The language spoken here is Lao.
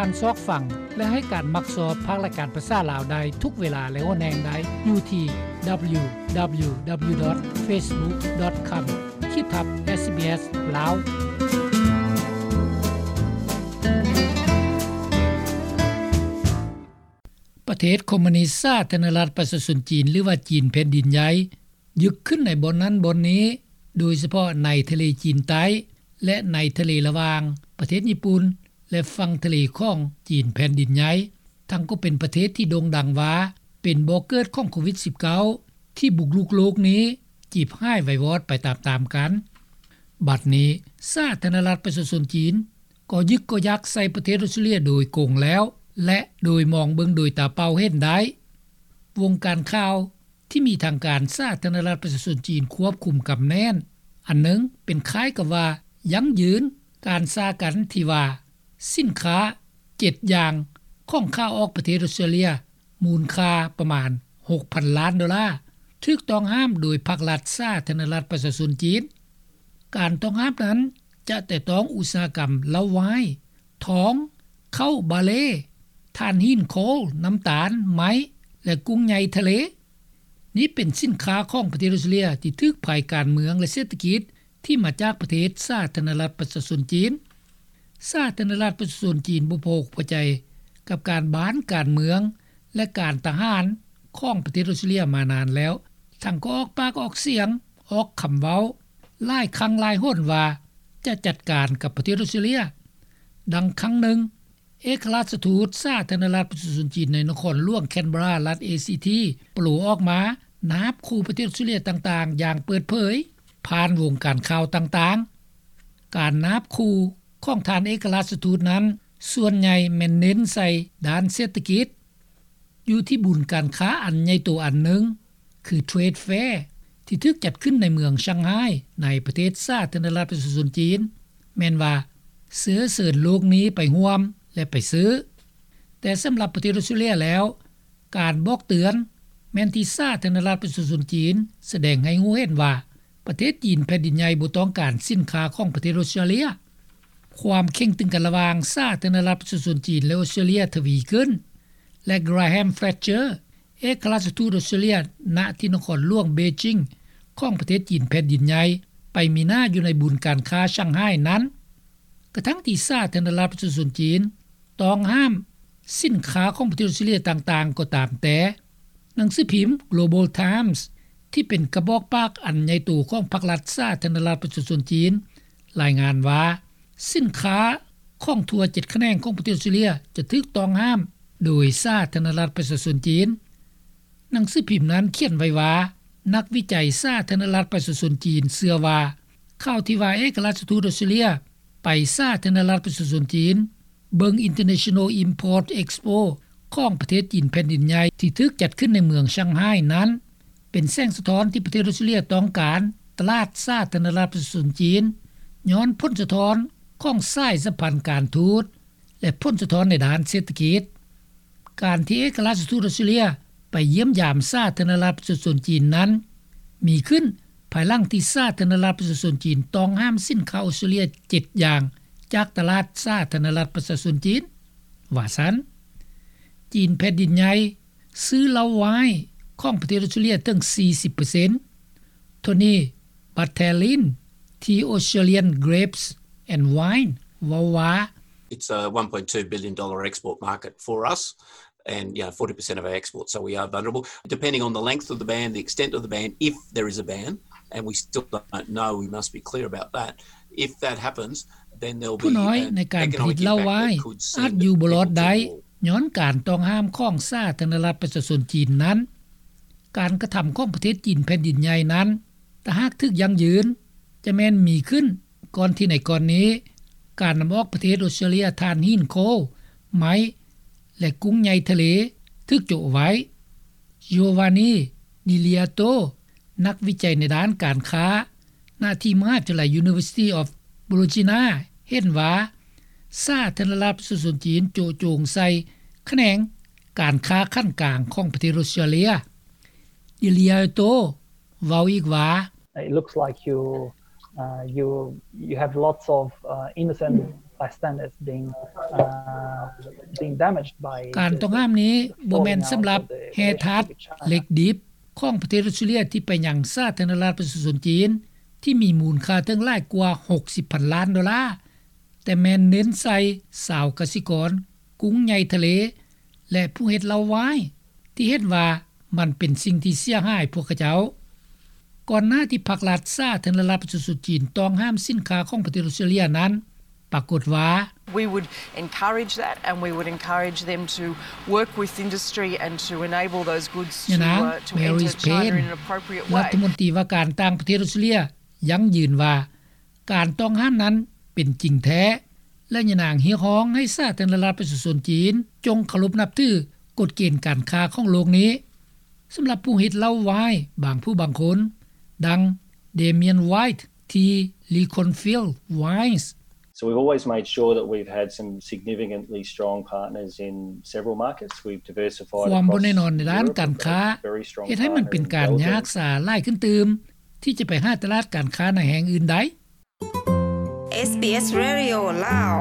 ການຊອກຟັງ ແລະ ໃຫ້ການມັກຊອບພາກລາຍການພາສາລາວໄດ້ທຸກເວລາ ແລະ ຫົວແຮງໄດ້ຢູ່ທີ່ www.facebook.com ຂີດທັບ SBS ລາວ. ປະເທດຄອມມູນິດສາທາລະນະລັດປະຊາຊົນຈີນ ຫຼືວ່າ ຈີນແຜ່ນດິນໃຫຍ່ ຍຶກຂຶ້ນໃນບ່ອນນັ້ນບ່ອນນີ້, ໂດຍສະເພາະໃນທະເລຈີນໃຕ້ ແລະ ໃນທະເລລະຫວ່າງປະເທດຍີ່ປຸ່ນ ແລະ ຝັ່ງທະເລຂອງຈີນແຜ່ນດິນໃຫຍ່, ທັງກໍເປັນປະເທດທີ່ໂດ່ງດັງວ່າເປັນບໍ່ເກີດຂອງໂຄວິດສິບເກົ້າ ທີ່ບຸກລຸກໂລກນີ້ ຈີບຫາຍໄວວອດໄປຕາມໆກັນ. ບັດນີ້ສາທາລະນະລັດປະຊາຊົນຈີນ ກໍຍຶກກໍຍັກໃສ່ປະເທດອົດສະຕຣາເລຍໂດຍກົງແລ້ວ ແລະ ໂດຍມອງເບິ່ງໂດຍຕາເປົ່າເຫັນໄດ້. ວົງການຂ່າວທີ່ມີທາງການສາທາລະນະລັດປະຊາຊົນຈີນຄວບຄຸມກຳແໜ້ນອັນໜຶ່ງ ເປັນຄ້າຍກັບວ່າຢັ້ງຢືນການສາກັນທີ່ວ່າ ສິນຄ້າເຈັດຢ່າງຂອງຂາອອກປະເທດອົດສະຕຣາເລຍ ມູນຄ່າປະມານຫົກພັນລ້ານໂດລາ ຖືກຕ້ອງຫ້າມໂດຍພັກລັດສາທາລະນະລັດປະຊາຊົນຈີນ. ການຕ້ອງຫ້າມນັ້ນຈະແຕະຕ້ອງອຸດສາຫະກຳເຫຼົ້າວາຍ, ທອງ, ເຂົ້າບາເລ, ຖ່ານຫີນໂຄລ, ນ້ຳຕານ, ໄມ້ ແລະ ກຸ້ງໃຫຍ່ທະເລ. ນີ້ເປັນສິນຄ້າຂອງປະເທດອົດສະຕຣາເລຍທີ່ຖືກໄພການເມືອງ ແລະ ເສດຖະກິດ ທີ່ມາຈາກປະເທດສາທາລະນະລັດປະຊາຊົນຈີນ. ສາທາລະນະລັດປະຊາຊົນຈີນບໍ່ພໍອົກພໍໃຈກັບການບ້ານການເມືອງ ແລະ ການທະຫານຂອງປະເທດອົດສະຕຣາເລຍມານານແລ້ວ, ທັງກໍອອກປາກອອກສຽງ, ອອກຄຳເວົ້າຫຼາຍຄັ້ງຫຼາຍຫົນວ່າຈະຈັດການກັບປະເທດອົດສະຕຣາເລຍ. ດັ່ງຄັ້ງໜຶ່ງ, ເອກະລາຊະທູດສາທາລະນະລັດປະຊາຊົນຈີນໃນນະຄອນຫຼວງແຄນເບຣາ ລັດເອຊີທີ ໂປໂລອອກມານາບຂູ່ປະເທດອົດສະຕຣາເລຍຕ່າງໆຢ່າງເປີດເຜີຍຜ່ານວົງການຂ່າວຕ່າງໆ. ການນາບຂູ່ຂອງທ່ານເອກະລາຊະທູດນັ້ນ ສ່ວນໃຫຍ່ແມ່ນເນັ້ນໃສ່ດ້ານເສດຖະກິດ. ຢູ່ທີ່ບຸນການຄ້າອັນໃຫຍ່ໂຕອັນໜຶ່ງ ຄື Trade Fair ທີ່ຖືກຈັດຂຶ້ນໃນເມືອງຊ່າງໄຮ ໃນປະເທດສາທາລະນະລັດປະຊາຊົນຈີນ ແມ່ນວ່າເຊື້ອເຊີນໂລກນີ້ໄປຮ່ວມ ແລະ ໄປຊື້. ແຕ່ສຳລັບປະເທດອົດສະຕຣາເລຍແລ້ວ, ການບອກເຕືອນແມ່ນທີ່ສາທາລະນະລັດປະຊາຊົນຈີນສະແດງໃຫ້ຮູ້ເຫັນວ່າ ປະເທດຈີນແຜ່ນດິນໃຫຍ່ບໍ່ຕ້ອງການສິນຄ້າຂອງປະເທດອົດສະຕຣາເລຍ. ຄວາມເຄັ່ງຕຶງກັນລະຫວ່າງສາທາລະນະລັດປະຊາຊົນຈີນ ແລະ ອົດສະຕຣາເລຍທະວີຂຶ້ນ ແລະ Graham Fletcher ເອກະລາຊະທູດອົດສະຕຣາເລຍ ນະທີ່ນະຄອນຫຼວງເບຈິງ ຂອງປະເທດຈີນແຜ່ນດິນໃຫຍ່ ໄປມີໜ້າຢູ່ໃນບຸນການຄ້າຊ່າງໄຮນັ້ນ. ກະທັ່ງທີ່ສາທາລະນະລັດປະຊາຊົນຈີນຕ້ອງຫ້າມສິນຄ້າຂອງປະເທດອົດສະຕຣາເລຍຕ່າງໆກໍຕາມແຕ່, ໜັງສືພິມ Global Times ທີ່ເປັນກະບອກປາກອັນໃຫຍ່ໂຕຂອງພັກລັດສາທາລະນະລັດປະຊາຊົນຈີນ ລາຍງານວ່າ ສິນຄ້າຂອງທົ່ວເຈັດຂະແໜງຂອງປະເທດອົດສະຕຣາເລຍຈະຖືກຕ້ອງຫ້າມໂດຍສາທາລະນະລັດປະຊາຊົນຈີນ. ໜັງສືພິມນັ້ນຂຽນໄວ້ວ່າ ນັກວິໄຈສາທາລະນະລັດປະຊາຊົນຈີນເຊື່ອວ່າ ຂ່າວທີ່ວ່າເອກະລາຊະທູດອົດສະຕຣາເລຍໄປສາທາລະນະລັດປະຊາຊົນຈີນ ເບິ່ງ International Import Expo ຂອງປະເທດຈີນແຜ່ນດິນໃຫຍ່ ທີ່ຖືກຈັດຂຶ້ນໃນເມືອງຊ່າງໄຮນັ້ນ ເປັນແສງສະທ້ອນທີ່ປະເທດອົດສະຕຣາເລຍຕ້ອງການຕະຫຼາດສາທາລະນະລັດປະຊາຊົນຈີນ ຍ້ອນຜົນສະທ້ອນຂອງສາຍສຳພັນການທູດ ແລະ ຜົນສະທ້ອນໃນດ້ານເສດຖະກິດ. ການທີ່ເອກະລາຊະທູດອົດສະຕຣາເລຍໄປຢ້ຽມຢາມສາທາລະນະລັດປະຊາຊົນຈີນນັ້ນ ມີຂຶ້ນພາຍຫຼັງທີ່ສາທາລະນະລັດປະຊາຊົນຈີນຕ້ອງຫ້າມສິນຄ້າອົດສະຕຣາເລຍເຈັດຢ່າງຈາກຕະຫຼາດສາທາລະນະລັດປະຊາຊົນຈີນ ວ່າຊັ້ນ. ຈີນແຜ່ນດິນໃຫຍ່ ຊື້ເຫຼົ້າວາຍຂອງປະເທດອົດສະຕຣາເລຍເຖິງສີ່ສິບເປີເຊັນ. Tony Bartellin ທີ່ Australian Grapes and Wine ເວົ້າວ່າ It's a one point two billion dollar export market for us and, you know, forty percent of our exports, so we are vulnerable. Depending on the length of the ban, the extent of the ban, if there is a ban, and we still don't know, we must be clear about that, if that happens, then there'll be ຜູ້ນ້ອຍໃນການຜະລິດເຫຼົ້າວາຍອາດຢູ່ບໍ່ລອດໄດ້ ຍ້ອນການຕ້ອງຫ້າມຂອງສາທາລະນະລັດປະຊາຊົນຈີນນັ້ນ. ການກະທຳຂອງປະເທດຈີນແຜ່ນດິນໃຫຍ່ນັ້ນ ຖ້າຫາກຖືກຢັ້ງຢືນ ຈະແມ່ນມີຂຶ້ນກ່ອນທີ່ໃນກ່ອນນີ້ ການນຳອອກປະເທດອົດສະຕຣາເລຍຖ່ານຫີນໂຄລ, ໄມ້ ແລະ ກຸ້ງໃຫຍ່ທະເລ ຖືກໂຈະໄວ້. Giovanni Di Liato ນັກວິໄຈໃນດ້ານການຄ້າ ນະທີ່ມະຫາວິທະຍາໄລ University of Bologna ເຫັນວ່າ ສາທາລະນະລັດປະຊາຊົນຈີນໂຈະໂຈງໃສ່ຂະແໜງການຄ້າຂັ້ນກາງຂອງປະເທດອົດສະຕຣາເລຍ. Di Liato ເວົ້າອີກວ່າ It looks like you, uh, you, you have lots of, uh, innocent bystand is being, uh, being damaged by ການຕ້ອງຫ້າມນີ້ບໍ່ແມ່ນສຳລັບແຮ່ທາດເຫຼັກດິບຂອງປະເທດອອສເຕຣເລັຽ ທີ່ໄປຍັງສາທາລະນະລັດປະຊາຊົນຈີນ ທີ່ມີມູນຄ່າເຖິງຫຼາຍກວ່າຫົກສິບພັນລ້ານໂດລາ, ແຕ່ແມ່ນເນັ້ນໃສ່ຊາວກະສິກອນ, ກຸ້ງໃຫຍ່ທະເລ ແລະ ຜູ້ເຮັດເຫຼົ້າວາຍ ທີ່ເຫັນວ່າມັນເປັນສິ່ງທີ່ເສຍຫາຍພວກເຂົາເຈົ້າ. ກ່ອນໜ້າທີ່ພັກລັດສາທາລະນະລັດປະຊາຊົນຈີນຕ້ອງຫ້າມສິນຄ້າຂອງປະເທດອອສເຕຣເລັຽນັ້ນ, ປາກົດວ່າ We would encourage that and we would encourage them to work with industry and to enable those goods to, ຍານາງ uh, to Marise enter China Payne, in an appropriate way. ລັດຖະມົນຕີວ່າການຕ່າງປະເທດອອສເຕຣເລັຽຢັ້ງຢືນວ່າ ການຕ້ອງຫ້າມນັ້ນເປັນຈິງແທ້ ແລະ ຍານາງຮຽກຮ້ອງໃຫ້ສາທາລະນະລັດປະຊາຊົນຈີນ ຈົ່ງເຄົາລົບນັບຖືກົດເກນການຄ້າຂອງໂລກນີ້. ສຳລັບຜູ້ເຮັດເຫຼົ້າວາຍບາງຜູ້ບາງຄົນ ດັ່ງ Damien White ທີ່ Leconfield Wines. So we've always made sure that we've had some significantly strong partners in several markets. We've diversified ຄວາມບໍ່ແນ່ນອນໃນດ້ານການຄ້າ ເຮັດໃຫ້ມັນເປັນການຍາກສາຫຼາຍຂຶ້ນຕື່ມ ທີ່ຈະໄປຫາຕະຫຼາດການຄ້າໃນແຫ່ງອື່ນໄດ້. ເອສບີເອສ Radio ລາວ.